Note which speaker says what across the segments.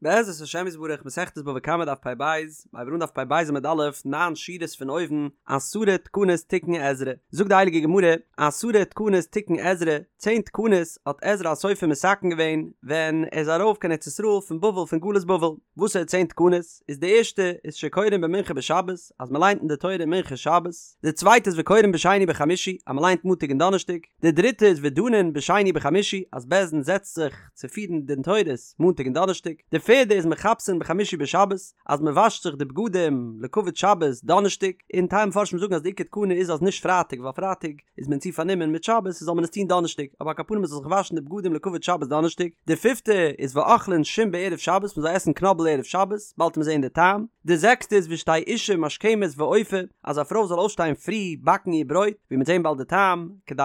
Speaker 1: בעזרת השם יתברך מסכת בבא קמא דף פ"ב, מ'הייבט אן דף פ"ב עמוד א', ניין שורות פון אויבן, עשרה תקנות תיקן עזרא, זאגט די הייליגע גמרא, עשרה תקנות תיקן עזרא, צען תקנות האט עזרא הסופר מתקן געווען ווען ער איז ארויף קיין ארץ ישראל פון בבל פון גלות בבל, וואסערע צען תקנות? איז די ערשטע איז שקורין במנחה בשבת, אז מען ליינט אין די תורה מנחה שבת, די צווייטע איז וקורין בשני בחמישי, אז מען ליינט מאנטאג און דאנערשטאג, די דריטע איז ודנין בשני בחמישי, אז בית דין זעצט זיך צו פירן דין תורות מאנטאג און דאנערשטאג, די פערדע איז מכבסין בחמישי בשבת, אז מען וואשט זיך די בגדים לכבוד שבת דאנערשטאג, און טייל מפרשים זאגן אז די עיקר תקנה איז אז נישט פרייטאג ווייל פרייטאג איז מען צו פארנומען מיט שבת זאל מען עס טון דאנערשטאג, אבער על כל פנים מען זאל זיך וואשן די בגדים לכבוד שבת דאנערשטאג, די פיפטע איז ואוכלין שום בערב שבת מען זאל עסן קנאבל ערב שבת, באלד וועט מען זען די טעם, די זעקסטע איז ושתהא אשה משכמת ואופה, אז א פרוי זאל אויפשטיין פרי באקן איר ברויט, ווי מ'וועט זען באלד די טעם, כדי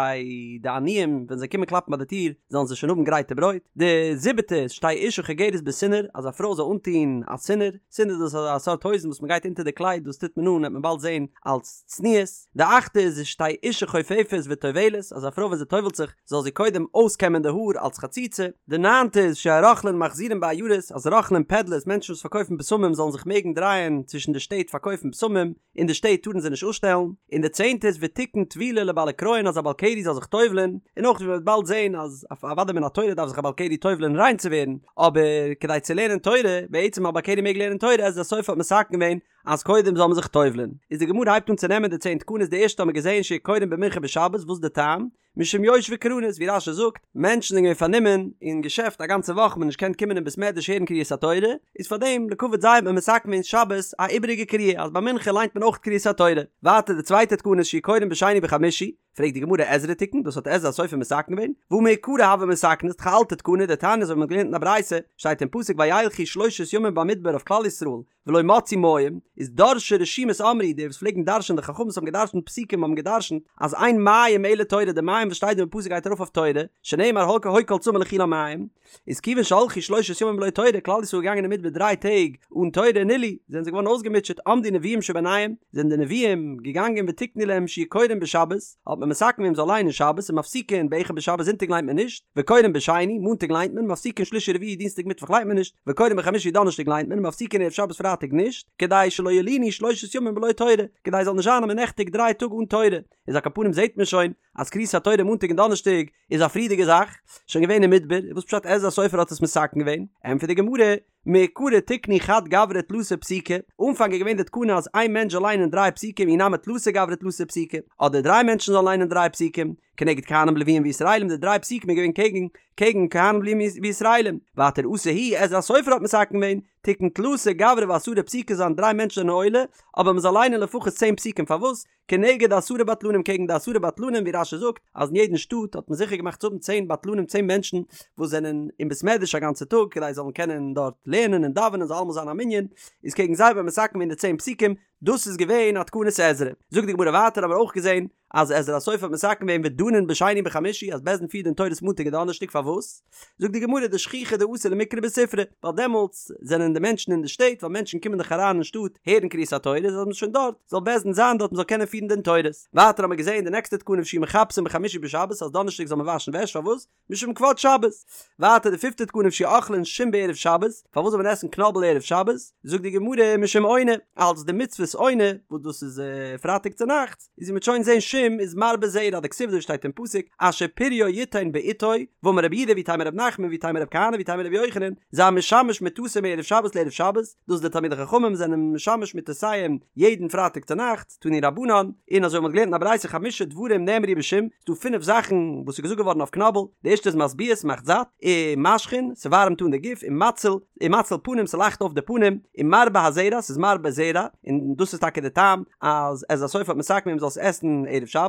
Speaker 1: די עניים ווען זיי קומען קלאפן ביי די טיר זאלן זיי שוין האבן גרייטע ברויט. די זיבעטע איז שתהא אשה חוגרת בסינר, אז א פרוי זאל אנטון א סינר, סינר דאס איז א סארט הויזן וואס מ'גייט אונטער די קלייד דאס טוט מען אן וועט מען באלד זען אלס צניעות. די אכטע איז שתהא אשה חופפת וטובלת, אז א פרוי ווען זי טובל'ט זיך זאל זי קודם אויסקעמען די האר אלס חציצה. די ניינטע איז שיהו רוכלין מחזירין בעיירות, אז רוכלים פעדלערס, מענטשן וואס פארקויפן בשמים זאלן זיך מעגן דרייען צווישן די שטעט פארקויפן בשמים, אין די שטעט טארן זיי נישט אפשטעלן. און די צענטע איז ותיקן טבילה לבעלי קריון אז א בעל קרי זאל זיך טובל'ען, און אויך ווי מען וועט באלד זען אז אוודאי מן התורה דארף זיך א בעל קרי טובל'ען ריין צו ווערן, אבער כדי צו לערנען תורה, בעצם א בעל קרי מעג לערנען תורה, עזרא הסופר האט מתקן געווען אז קודם זאל מען זיך טובל'ען. איז די גמרא הייבט אן צו נעמען די צען תקנות די ערשטע האט מען געזען שיהו קורין במנחה בשבת וואס איז די טעם? משום יושבי קרנות ווי רש"י זאגט, מענטשן זענען געווען פארנומען אין געשעפט א גאנצע וואך מ'האט נישט געקענט קומען אין בית מדרש הערן קריאת התורה, איז פאר דעם לכבוד זיי האט מען מתקן געווען שבת א איבעריגע קריאה אז ביי מנחה ליינט מען אויך קריאת התורה. ווייטער די צווייטע תקנה איז שיהו קורין בשני בחמישי, פרעגט די גמרא עזרא תיקן, דאס האט עזרא הסופר מתקן געווען? והא מעיקרא הוה מתקני, ס'איז דאך א אלטע תקנה, דתניא אזוי ווי מ'האט געלערנט אין א ברייתא, שטייט אין פסוק וילכו שלושת ימים במדבר אויף כלל ישראל, ולא מצאו מים, איז דורשי רשומות אמרו, די וואס פלעגן דרש'ען די חכמים וואס האבן געדרש'נט פסוקים האבן געדרש'נט אז אין מים אלא תורה די מים וואס שטייט דא אין פסוק גייט ארויף אויף תורה, שנאמר הוי הוי כל צמא לכו למים, איז כיוון שהלכו שלושת ימים בלא תורה, כלל ישראל איז געגאנגען אין מדבר דריי טעג אן תורה נלאו, זענען זיי געווארן אויסגעמוטשעט, עמדו נביאים שביניהם, זענען די נביאים געגאנגען ותיקנו להם שיהו קורין בשבת, האט מען מתקן געווען מ'זאל ליינען שבת ומפסיקין באחד בשבת זונטאג ליינט מען נישט, וקורין בשני, מאנטאג ליינט מען, מפסיקין שלישי רביעי דינסטאג מיטוואך ליינט מען נישט, וקורין בחמישי דאנערשטאג ליינט מען, מפסיקין ערב שבת פרייטאג נישט, כדי שלא ילינו שלושת ימים בלא תורה, כדי עס זאל נישט זיין אז מען נעכטיגט דריי טאג אן תורה, איז על כל פנים זעט מען שוין אז קריאת התורה מאנטאג און דאנערשטאג איז א פריערדיגע זאך, שוין געווען אין מדבר, וואס פשט עזרא הסופר האט עס מתקן געווען? ענטפערט די גמרא, מעיקרא תיקנו חד גברא תלתא פסוקי, אנפאנג איז געווען די תקנה אז איין מענטש זאל ליינען דריי פסוקים אי נמי תלתא גברי תלתא פסוקי, אדער דריי מענטשן זאלן ליינען דריי פסוקים, כנגד כהנים לוויים וישראלים די דריי פסוקים איז געווען קעגן קעגן כהנים לוויים וישראלים, ווייטער אתא הוא עזרא הסופר האט מתקן געווען, תיקן תלתא גברי ועשרה פסוקי זאלן דריי מענטשן זענען עולה, אבער מען זאל ליינען לפחות צען פסוקים פארוואס? כנגד עשרה בטלנים קעגן די עשרה בטלנים ווי רש"י זאגט אז אין יעדן שטאט האט מען זיכער געמאכט צו האבן צען בטלנים צען מענטשן וואס זענען אין בית מדרש א גאנצע טאג כדי זיי זאלן קענען דארט לערנען און דאווענען זאל אלעמאל זיין א מנין איז קעגן זיי האט מען מתקן געווען די צען פסוקים דאס איז געווען א תקנת עזרא זאגט די גמרא ווייטער האבן מיר אויך געזען אז עזרא הסופר האט מתקן געווען ודנין בשני בחמישי אז בית דין פירט דין תורות מאנטאג און דאנערשטאג פארוואס זאגט די גמרא דשכיחי דאתו למיקרי בספרא, ווייל דעמאלטס זענען די מענטשן אין די שטעט, ווייל מענטשן קומען דאך אריין אין שטאט הערן קריאת התורה, איז אז מ'איז שוין דארט, זאל בית דין זיין דארט מ'זאל קענען פירן דין תורות. ווייטער האבן מיר געזען די נעקסטע תקנה ושיהו מכבסין בחמישי בשבת אז דאנערשטאג זאל מען וואשן וועש, פארוואס? משום כבוד שבת. ווייטער די פיפטע תקנה ושיהו אוכלין שום בערב שבת, פארוואס זאל מען עסן קנאבל ערב שבת? זאגט די גמרא משום עונה, אלס די מצוות עונה, וואס דאס איז פרייטאג צונאכטס, איז ווי מ'וועט שוין זעהן שום איז מרבה זרע דכתיב אזוי שטייט אין פסוק אשר פריו יתן בעתו ואמר רבי יהודה ואיתימא רב נחמן ואיתימא רב כהנא ואיתימא רבי יוחנן זה המשמש מטתו מערב שבת לערב שבת דאס די תלמידי חכמים זענען משמש מטותיהם יעדן פרייטאג צונאכטס תנו רבנן און אזוי האט מען געלערנט אין א ברייתא חמשה דברים נאמרו בשום ס'דא פינף זאכן וואס איז געזאגט געווארן אויף קנאבל די ערשטע איז משביע ס'מאכט זאט ומשחין ס'ווארעמט אן די גוף ומציל ומציל פנים ס'לייכט אויף די פנים, ומרבה הזרע ס'איז מרבה זרע, און דאס איז טאקע די טעם אז עזרא הסופר האט מתקן געווען מ'זאל עס עסן ערב שבת,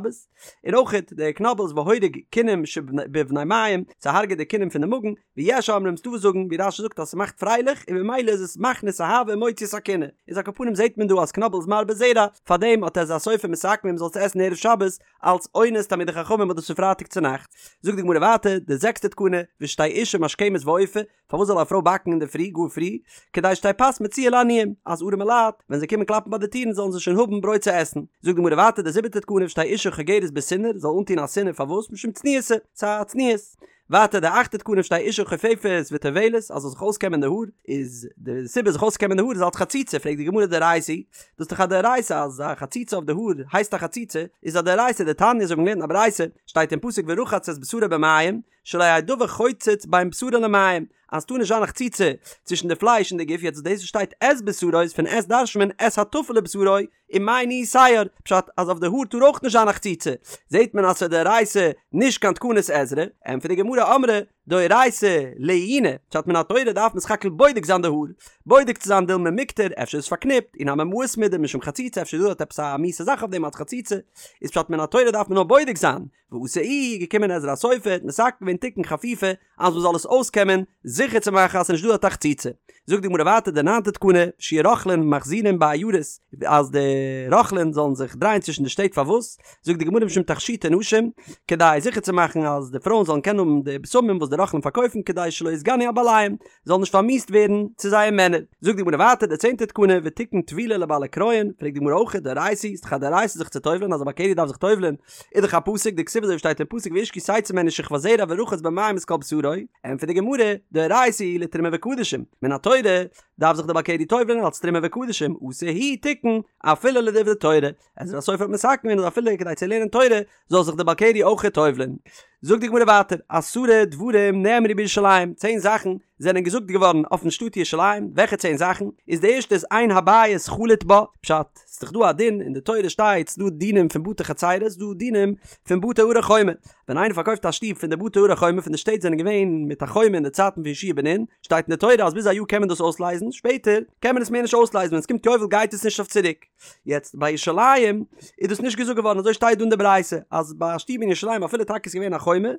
Speaker 1: און אויכעט די קנאבל איז והורג כינים שבבני מעיים, ס'הארגעט די כינים פון די מאגן, ויש אומרים ס'דא וואס זאגן ווי רש"י זאגט אז ס'מאכט פרייליך און ממילא איז עס מכניס אהבה און מוציא את הקנאה, איז על כל פנים זעט מען דא אז קנאבל איז מרבה זרע, פארדעם האט עזרא הסופר מתקן געווען מ'זאל עס עסן ערב שבת, אלס עונת תלמידי חכמים וואס דאס איז פרייטאג צונאכטס, זאגט די גמרא ווייטער די זעקסטע תקנה, ושתהא אשה משכמת ואופה, פארוואס זאל א פרוי באקן אינדערפרי גאר פרי? כדי שתהא פת מצויה לעניים, אז ארעמע לייט, ווען זיי קומען קלאפן ביי די טירן זאלן זיי שוין האבן ברויט צו עסן. זאגט די גמרא ווייטער די זיבעטע תקנה ושתהא אשה חוגרת בסינר, זאל אנטון א סינר פארוואס? משום צניעותא, ס'איז א צניעות. ווייטער די אכטע תקנה שתהא אשה חופפת וטובלת אז זאל זיך אויסקעמען די האר, איז די סיבה זיך אויסקעמען די האר איז אלץ חציצה, פרעגט די גמרא דאורייתא היא, דאס איז דאך א דאורייתא אז א חציצה אויף די האר הייסט א חציצה, איז א דאורייתא דתניא אזוי ווי מ'האט געלערנט אין א ברייתא, שטייט אין פסוק ורחץ את בשרו במים, שלא יהא דבר חוצץ בין בשרו למים, אז ס'טאר נישט זיין א חציצה צווישן די פלייש און די גוף, יעצט דאס וואס שטייט את בשרו איז פון את דרש'נט מען את הטפל לבשרו, ומאי ניהו שער, פשט אז אויף די האר טאר אויך נישט זיין א חציצה, זעהט מען אז ס'איז דאורייתא נישט קיין תקנת עזרא, ענטפערט די גמרא אמרי דאורייתא לעיוני, פשט מן התורה דארף מען סך הכל בודק זיין די האר, בודק צו זיין דילמא מיקטר, אפשר איז פארקניפט, אי נמי מאיס מידי משום חציצה אפשר איז דא דארט עפעס א מיאוסע זאך אויף דעם אלץ חציצה, איז פשט מן התורה דארף מען נאר בודק זיין, ואתא איהו, געקומען עזרא הסופר, האט מתקן געווען תיקון חפיפה, אז מ'זאל עס אויסקעמען, זיכער צו מאכן אז ס'איז נישט דא דארט א חציצה. זאגט די גמרא ווייטער די ניינטע תקנה, שיהו רוכלין מחזירין בעיירות, אז די רוכלין זאלן זיך דרייען צווישן די שטעט פארוואס? זאגט די גמרא משום תכשיטי נשים, כדי זיכער צו מאכן אז די פרויען זאלן קענען האבן די בשמים וואס די רוכלין פארקויפן כדי שלא יתגנו על בעליהם, זאלן נישט פארמיאוסט ווערן צו זייער מענער. זאגט די גמרא ווייטער די צענטע תקנה ותיקן טבילה לבעלי כריין, פרעגט די גמרא אויך דאורייתא היא, ס'איז דאך א דאורייתא זיך צו טובל'ען אז א בעל קרי דארף זיך טובל'ען, איז דאך א פסוק דכתיב אזוי ווי שטייט אין פסוק ואיש כי תצא ממנו שכבת זרע ורחץ במים את כל בשרו, ענטפערט די גמרא, דאורייתא היא לתרומה וקדשים, מן התורה דארף זיך די בעל קרי טובל'ען אלס תרומה וקדשים, אתא הוא תיקן אפילו לדברי תורה, עזרא הסופר האט מתקן געווען אז אפילו כדי צו לערנען תורה זאל זיך די בעל קרי אויך טובל'ען. זאגט די גמרא ווייטער, עשרה דברים נאמרו בירושלים, צען זאכן זענען געזאגט געווארן אויפן שטאט ירושלים, וועלכע צען זאכן? איז די ערשטע איז אין הבית חלוט בה, פשט, ס'איז דאך דא א דין, אין די תורה שטייט ס'דא דינים פון בתי חצירות, ס'דא דינים פון בתי ערי חומה, ווען איינער פארקויפט א שטוב פון די בתי ערי חומה פון די שטעט זענען געווען מיט א חומה אין די צייטן פון יהושע בן נון, שטייט אין די תורה אז ביז א יאר קען מען דאס אויסלייזן, שפעטער קען מען עס מער נישט אויסלייזן, ווען ס'קומט יובל גייט עס נישט אויף צוריק. יעצט ביי ירושלים איז דאס נישט געזאגט געווארן אזוי שטייט דא אין די ברייתא אז ביי א שטוב אין ירושלים אפילו טאקע איז געווען א חומה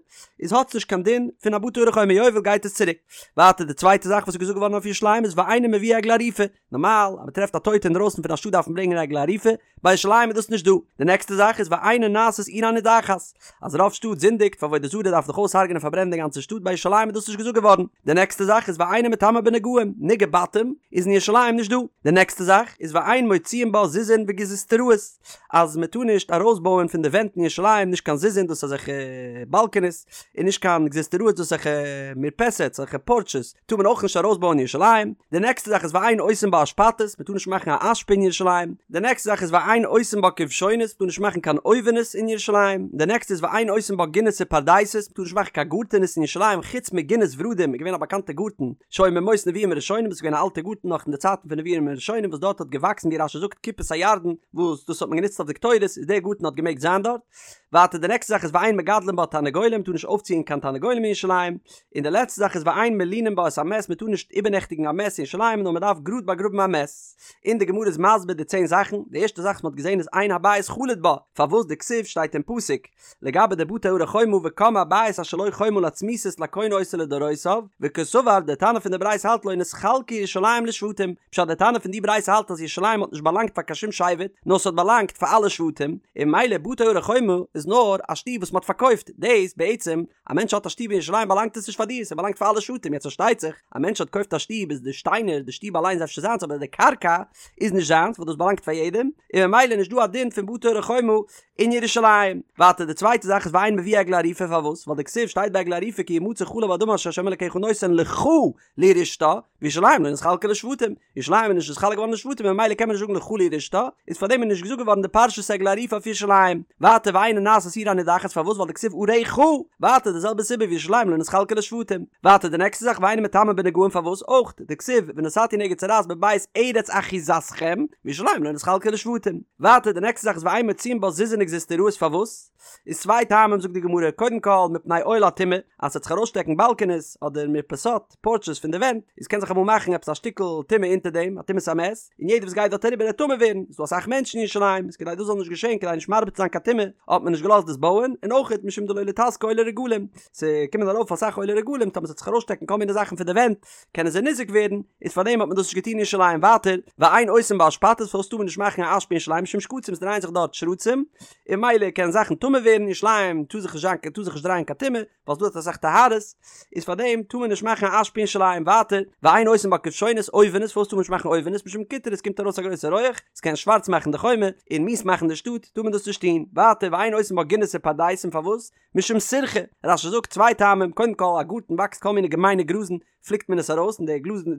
Speaker 1: איז האט עס נישט קיין דין פון א בתי ערי חומה יובל גייט עס צוריק. ווייטער די צווייטע זאך וואס איז געזאגט געווארן אויף ירושלים איז ואינו מביא עגלה ערופה, נארמאל אז מען טרעפט א טויטע אינדרויסן פון א שטאט דארף מען ברענגען עגלה ערופה, ביי ירושלים איז דאס נישט דא. די נעקסטע זאך איז ואינה נעשית עיר הנידחת, אז רוב שטאט זינדיגט פאר עבודה זרה דארף מען דאך אויסהרג'נען און פארברענען די גאנצע שטאט ביי ירושלים איז דאס נישט געזאגט געווארן. די נעקסטע זאך איז ואינה מטמאה בנגעים, נגעי בתים איז אין ירושלים נישט דא. די נעקסטע זאך איז ואין מוציאין בה זיזין וגזוזטראות, אז מען טאר נישט ארויסבויען פון די ווענט אין ירושלים נישט קיין זיזין דאס אזעלכע באלקענעס, און נישט קיין גזוזטראות דאס אזעלכע מרפסת אזעלכע פארטשעס טאר מען אויך נישט ארויסבויען אין ירושלים. די נעקסטע זאך איז ואין עושים בה אשפתות, מען טאר נישט מאכן א אשפה אין ירושלים. די נעקסטע זאך איז ואין עושים בה כבשונות, מען טאר נישט מאכן קיין אויווענעס אין ירושלים. די נעקסטע איז ואין עושים בה גינות ופרדסות, מען טאר נישט מאכן קיין גארטענעס אין ירושלים חוץ מגינת ורדים איז געווען א באקאנטע גארטן שהיה מימות נביאים הראשונים וואס איז געווען א אלטע גארטן נאך אין די צייטן פון נביאים הראשונים וואס דארט האט געוואקסן ווי רש"י זאגט כיפת הירדן וואס דאס האט מען גענוצט אויף די קטורת איז דער גארטן האט געמעגט זיין דארט. ווייטער די נעקסטע זאך איז ואין מגדלין בה תרנגולים, מען טאר נישט אויפציען קיין תרנגולים אין ירושלים. און די לעצטע זאך איז ואין מלינין בה את המת מען טאר נישט איבערנעכטיגן א מת אין ירושלים נאר מען דארף גראד באגראבן א מת. און די גמרא איז מסביר די צען זאכן, די ערשטע זאך וואס מען האט געזען איז אין הבית חלוט בה, פארוואס דכתיב שטייט אין פסוק לגבי די בתי ערי חומה וקם הבית אשר לו חומה לצמיתות לקונה אותו לדורותיו, וקסבר די תנא פון די ברייתא האלט לא נתחלקה ירושלים לשבטים, פשט די תנא פון די ברייתא האלט אז ירושלים האט נישט באלאנגט פאר קיין שום שבט נאר ס'האט באלאנגט פאר אלע שבטים, און ממילא בתי ערי חומה איז נאר א שטוב וואס מען האט פארקויפט, דאס בעצם א מענטש האט א שטוב אין ירושלים באלאנגט עס נישט פאר דיר, ס'באלאנגט פאר אלע שבטים, יעצט פארשטייט זיך, א מענטש האט קויפט א שטוב איז די שטיינער, די שטוב אליין איז אפשר זיינס אבער די קרקע איז נישט זיינס ווייל דאס באלאנגט פאר יעדעם, און ממילא נישט דא א דין פון בתי ערי חומה אין ירושלים. ווייטער די צווייטע זאך איז ואין מביא עגלה ערופה פארוואס? ווייל דכתיב שטייט ביי עגלה ערופה כי ימצא חלל באדמה אשר ה' אלקיך נותן לך לירשתה, וירושלים לא נתחלקה לשבטים, ירושלים איז נישט נתחלק געווארן לשבטים און ממילא קען מען נישט זאגן לך לירשתה, איז פארדעם איז נישט געזאגט געווארן די פרשת עגלה ערופה אויף ירושלים. ווייטער ואינה נעשית עיר הנידחת פארוואס ווייל דכתיב עריך, ווייטער די זעלבע סיבה וירושלים לא נתחלקה לשבטים. ווייטער די נעקסטע זאך ואינה מטמאה בנגעים פארוואס אויך דכתיב ונתתי נגע צרעת בבית ארץ אחוזתכם, וירושלים לא נתחלקה לשבטים. ווייטער די נעקסטע זאך איז ואין מוציאין בה זיזין וגזוזטראות פארוואס איז צוויי טעמים זאגט די גמרא קודם כל מפני אוהל הטומאה אז ס'וועט זיך ארויסשטעקן באלקענעס אדער מרפסות פארטשעס פון די ווענט איז קען זיך אמאל מאכן עפעס א שטיקל טומאה אונטער דעם א טומאת המת און יעדער וואס גייט דארט אריבער וועט טמא ווערן ס'איז דא אסאך מענטשן אין ירושלים איז כדי דאס זאל נישט געשען כדי נישט מרבה צו זיין קיין טומאה האט מען נישט געלאזט דאס בויען און אויך משום דלא ליתזקו עולי רגלים ס'קומען ארויף אסאך עולי רגלים טאמער ס'וועט זיך ארויסשטעקן כל מיני זאכן פון די ווענט קענען זיי ניזוק ווערן, איז פאר דעם האט מען דאס נישט געטון אין ירושלים ווייטער, ואין עושים בה אשפתות פארוואס טאר מען נישט מאכן א אשפה אין ירושלים משום שקצים עס דרייען זיך דארט שרצים, און ממילא קענען זאכן טמא ווערן, אין ירושלים טאר זיך נישט זיין טאר זיך נישט דרייען קיין טומאה, ווייל ס'דא דארט אסאך טהרות, איז פאר דעם טאר מען נישט מאכן א אשפה אין ירושלים ווייטער, ואין עושים בה כבשונות אויווענעס פארוואס טאר מען נישט מאכן אויווענעס משום קוטרא עס קומט ארויס א גרויסע רויעך, עס קען שווארץ מאכן די חומה, און מיאוס מאכן די שטאט, טאר מען דאס נישט טון, ווייטער ואין עושים. עושין בה גינות ופרדסים פארוואס? משום סירחא, רש"י זאגט צוויי טעמים, קודם כל א גארטן וואקסט כל מיני געמיינע גראזן, פליקט מען עס ארויס און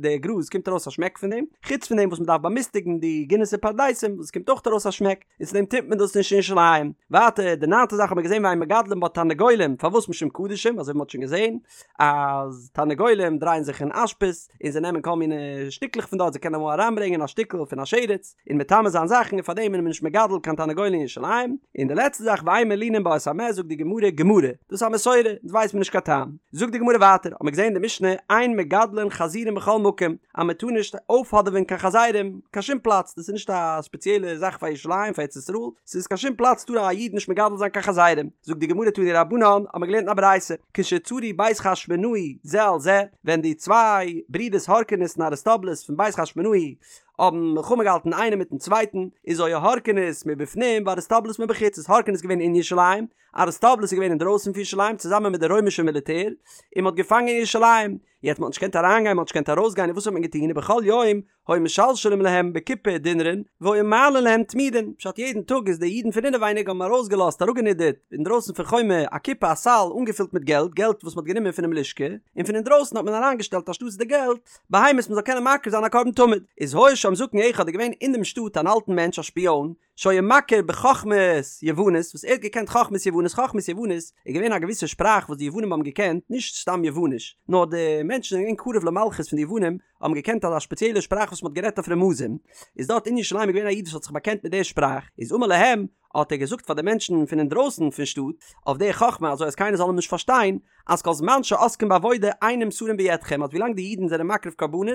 Speaker 1: די גראז קומט ארויס א שמעק פון דעם, חוץ פון דעם וואס מען דארף באמיסטיגן די גינות און פרדסים וואס עס קומט אויך ארויס א שמעק, און צו דעם טוט מען דאס נישט אין ירושלים. ווייטער די ניינטע זאך האט מען געזען ואין מגדלין בה תרנגולים, פארוואס משום קדשים, אזוי ווי מען האט שוין געזען אז תרנגולים דרייען זיך אין אשפות און זיי נעמען כל מיני שטיקלעך פון דארט, זיי קענען אמאל אריינברענגען א שטיקל פון א שרץ און מטמא זיין זאכן און פארדעם איז מען נישט מגדל קיין תרנגולים אין ירושלים. און די לעצטע זאך ואין מלינין בה את המת זאגט די גמרא גמרא, דאס איז א מסורה, אונז ווייסט מען נישט קיין טעם. זאגט די גמרא ווייטער, האט מען געזען אין די משנה אין מגדלין חזירים בכל מקום, אז מען טאר נישט אויפהאדעווען קיין חזירים קיין שום פלאץ, דאס איז נישט א ספעציעלע זאך פאר ירושלים פאר ארץ ישראל, ס'איז קיין שום פלאץ טאר א איד נישט מגדל זיין קיין חזירים. זאגט די גמרא תנו רבנן, האט מען געלערנט אין א ברייתא, כשצרו בית חשמונאי זה על זה, ווען די צוויי ברידערס הורקנוס און אריסטובולוס פון בית חשמונאי האבן מלחמה געהאלטן איינער מיטן צווייטן, איז היה הורקנוס מבפנים ואריסטובולוס מבחוץ, איז הורקנוס געווען אין ירושלים, אריסטובולוס איז געווען אינדרויסן פון ירושלים צוזאמען מיט די רוימישע מיליטער, און מ'האט געפאנגען ירושלים, יעצט מ'האט נישט געקענט אריינגיין, מ'האט נישט געקענט ארויסגיין, און וואס האט מען געטון, ובכל יום היו משלשלים להם בקופה דינרין, והיו מעלין להם תמידין, פשט יעדן טאג איז די אידן פון אינעווייניג האבן ארויסגעלאזט אראפגענידערט אינדרויסן פון חומה א קופה א סל אנגעפילט מיט געלט, געלט וואס מ'האט גענומען פונעם לשכה, און פון אינדרויסן האט מען אריינגעשטעלט אנשטאטס די געלט, בהמות מ'זאל קענען מקריב זיין א קרבן תמיד, איז היה שם זקן אחד איז געווען אין דעם שטאט אן אלטן מענטש א שפיאן, שהיה מכיר בחכמת יוונית, וואס ער האט געקענט חכמת יוונית, חכמת יוונית איז געווען א געוויסע שפראך וואס די יוונים האבן געקענט, נישט סתם יווניש, נאר די מענטשן זענען געווען קרוב למלכות פון די יוונים, האבן געקענט אזא שפעציעלע שפראך וואס מ'האט גערעדט אויף רמזים, איז דארט אין ירושלים איז געווען א איד וואס האט זיך באקענט מיט די שפראך, איז אמר להם, האט ער געזאגט פאר די מענטשן פון אינדרויסן פון שטאט, אויף די חכמה אזוי אז קיינער זאל אים נישט פארשטיין, אז כל זמן שעוסקים בעבודה אין נמסרים בידכם אז ווילאנג די אידן זענען מקריב קרבנות,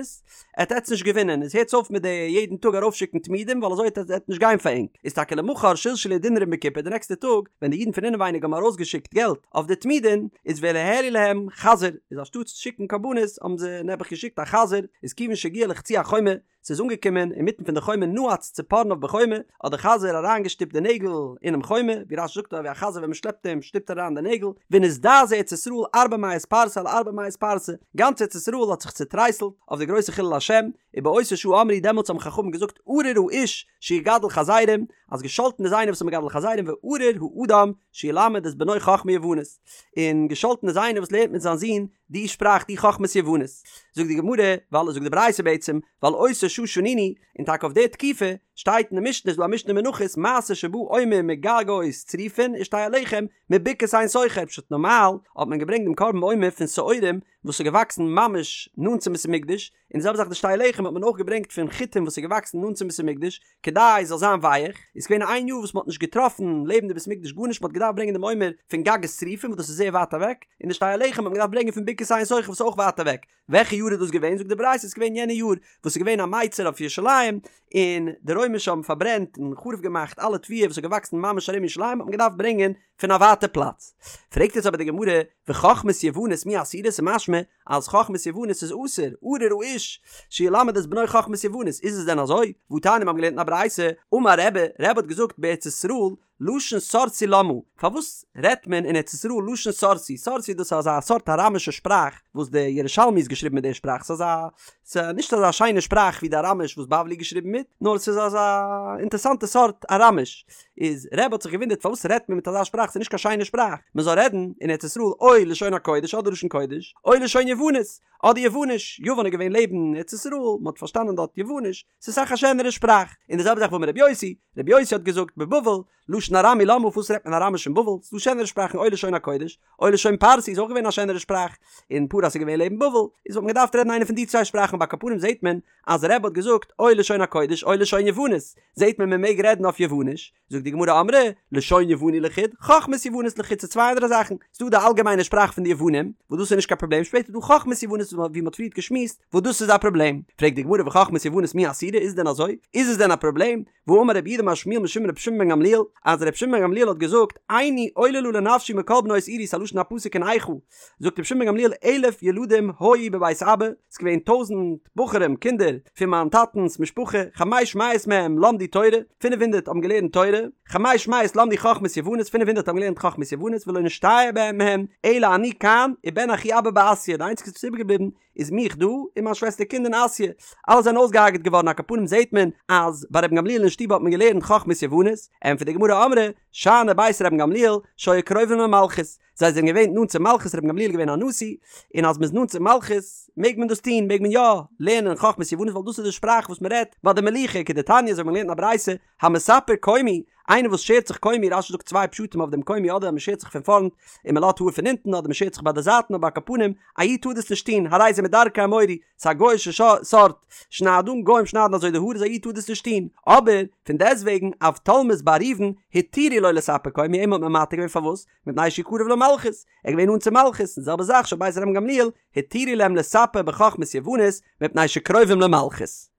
Speaker 1: עט עטץ נישט געווינען, איז הערטס אויף מיט די יעדן טאג ארויפשיקן תמידים ווייל אזוי עט עט נישט גיין פאר ענק. איז טאקע למחר שלשלו דינרים בקופה די נעקסטע טאג ווען די אידן פון אינעווייניג האבן ארויסגעשיקט געלט אויף די תמידין, איז והעלו להם חזיר, איז אנשטאטס שיקן קרבנות האבן זיי נעבעך געשיקט א חזיר, איז כיוון שהגיע לחצי החומה, ס'איז אנגעקומען אינמיטן פון די חומה נעץ ציפורניו בחומה, האט דער חזיר אריינגעשטופט די נעגל אינעם חומה, ווי רש"י זאגט אזוי ווי א חזיר ווען מ'שלעפט אים שטופט ער אריין די נעגל, ונזדעזעה ארץ ישראל ארבע מאות פרסה על ארבע מאות פרסה, גאנץ ארץ ישראל האט זיך צוטרייסלט אויף די גרויסע חילול השם, ובאותה שעה אמרו דעמאלטס האבן חכמים געזאגט ארור האיש שיגדל חזירים, אז געשאלטן איז איינער וואס איז מגדל חזירים וארור האדם שילמד את בנו חכמה יוונית, און געשאלטן איז איינער וואס לערנט מיט זיין זון די שפראך די חכמת יוונית. זאגט די גמרא, ועל זאגט די ברייתא בעצם, ועל אותה שעה שנינו, און טאקע אויף די תקופה, שטייט אין די משנה, איז דא א משנה אין מנחות, מעשה שבא עומר מגגות צריפין ושתי הלחם מבקעת עין סוכר, פשט נארמאל האט מען געברענגט דעם קרבן עומר פון שעורים וואס איז געוואקסן ממש נאנט צום בית המקדש, און די זעלבע זאך די שתי הלחם האט מען אויך געברענגט פון חיטים וואס איז געוואקסן נאנט צום בית המקדש, כדי עס זאל זיין ווייעך, איז געווען איין יאר וואס מען האט נישט געטראפן לעבן די בית המקדש גארנישט, מען האט געדארפט ברענגען דעם עומר פון גגות צריפין וואס דאס איז זייער ווייט אוועק, און די שתי הלחם האט מען געדארפט ברענגען פון בקעת עין סוכר וואס איז אויך ווייט אוועק, וועלכע יאר איז דאס געווען? זאגט די ברייתא ס'איז געווען יענע יאר וואס איז געווען א מיצר אויף ירושלים, און די רוימישע האבן פארברענט און חרוב געמאכט אלע תבואה וואס איז געוואקסן ממש ארום ירושלים האט מען געדארפט ברענגען פון א ווייטע פלאץ. פרעגט יעצט אבער די גמרא, וחכמת יוונית מי אסירא? ס'איז משמע אז חכמת יוונית איז אסור, ארור האיש שילמד את בנו חכמת יוונית, איז עס דען אזוי? והתניא מיר האבן געלערנט אין א ברייתא, אמר רבי, רבי האט געזאגט בארץ ישראל לשון סורסי למה, פארוואס רעדט מען אין ארץ ישראל לשון סורסי, סורסי דאס איז אזא סארט אראמישע שפראך וואס די ירושלמי איז געשריבן מיט די שפראך, ס'איז אזא, ס'איז נישט אזא שיינע שפראך ווי די אראמיש וואס בבלי איז געשריבן מיט, נאר ס'איז אזא אינטערסאנטע סארט אראמיש, איז רבי האט זיך געוואונדערט פארוואס רעדט מען מיט אזא שפראך ס'איז נישט קיין שיינע שפראך מען זאל רעדן אין ארץ ישראל או לשון הקודש אדער לשון קודש או לשון יוונית אדער יווניש יוון איז געווען לעבן ארץ ישראל מען האט פארשטאנען דארט יווניש ס'איז אסאך א שענערע שפראך און די זעלבע זאך ואמר רבי יוסי רבי יוסי האט געזאגט בבבל לשון ארמי למה פארוואס רעדט מען אראמיש אין בבל ס'איז דא שענערע שפראכן או לשון הקודש או לשון פרסי איז אויך געווען א שענערע שפראך און פרס איז געווען לעבן בבל איז וואלט מען געדארפט רעדן איינע פון די צוויי שפראכן אבער על כל פנים זעט מען אז רבי האט געזאגט או לשון הקודש או לשון יוונית, זעהט מען מען מעג רעדן אויף יווניש, זאגט די גמרא אמרי, לשון יווני לחוד, חכמת יוונית לחוד ס'איז צוויי אנדערע זאכן, ס'דא די אלגעמיינע שפראך פון די יוונים, וואס דאס איז נישט קיין פראבלעם, שפעטער איז דא חכמת יוונית ווי מ'האט פריערט געשמועסט, וואס דאס איז א פראבלעם, פרעגט די גמרא וחכמת יוונית מי אסירא איז דען אזוי? איז עס דען א פראבלעם? והאמר רב יהודה אמר שמואל משום רבי שמעון בן גמליאל, אז רבי שמעון בן גמליאל האט געזאגט, עיני עוללה לנפשי מכל בנות עירי ס'א לשון הפסוק אין איכה, זאגט רבי שמעון בן גמליאל אלף ילדים היו בבית אבא, ס'איז געווען טויזענט בחורים, קינדער, פון מיין טאטענס משפחה, חמש מאות מהם למדו תורה, פינף הונדערט האבן געלערנט תורה, חמש מאות למדו חכמת יוונית, פינף הונדערט האבן געלערנט חכמת יוונית, ולא נשתייר בהם מהם, אלא אני כאן, ובן אחי אבא בעסיא, די איינציגסטע וואס איז איבערגעבליבן, איז מיך דא און מיין שוועסטער קינד און אסיא, אלע זענען אויסגעהארגעט געווארן על כל פנים זעהט מען אז ביי רבן גמליאל אין שטוב האט מען געלערנט חכמת יוונית, ענטפערט די גמרא אמרי שאני בית רבן גמליאל שהיו קרובים למלכות, זיי זענען געווען נאנט צום מלכות רבן גמליאל איז געווען א נשיא, און אז מען איז נאנט צום מלכות מעג מען דאס טון, מעג מען יא לערנען חכמת יוונית ווייל דאס איז די שפראך וואס מען רעדט ביי די מלוכה כדתניא אזוי ווי מען לערנט אין א ברייתא המספר קומי, איינער וואס שערט זיך קומי, רש"י זאגט צוויי פשטים אויף דעם קומי אדער אז מען שערט זיך פון פארנט און מען לאזט האר פון הינטן אדער מען שערט זיך ביי די זייטן אבער על כל פנים א איד טאר דאס נישט טון הרי זה מדרכי האמורי ס'איז א גוי'אישע סארט שניידונג גוים שניידן אזוי די האר איז א איד טאר דאס נישט טון אבער פון דעסטוועגן אבטולמוס בר ראובן התירו לו לספר קומי אים האט מען מתיר געווען פארוואס מפני שהוא קרוב למלכות ער איז געווען נאנט צום מלכות און די זעלבע זאך של בית רבן גמליאל התירו להם לספר בחכמת יוונית מפני שקרובים למלכות.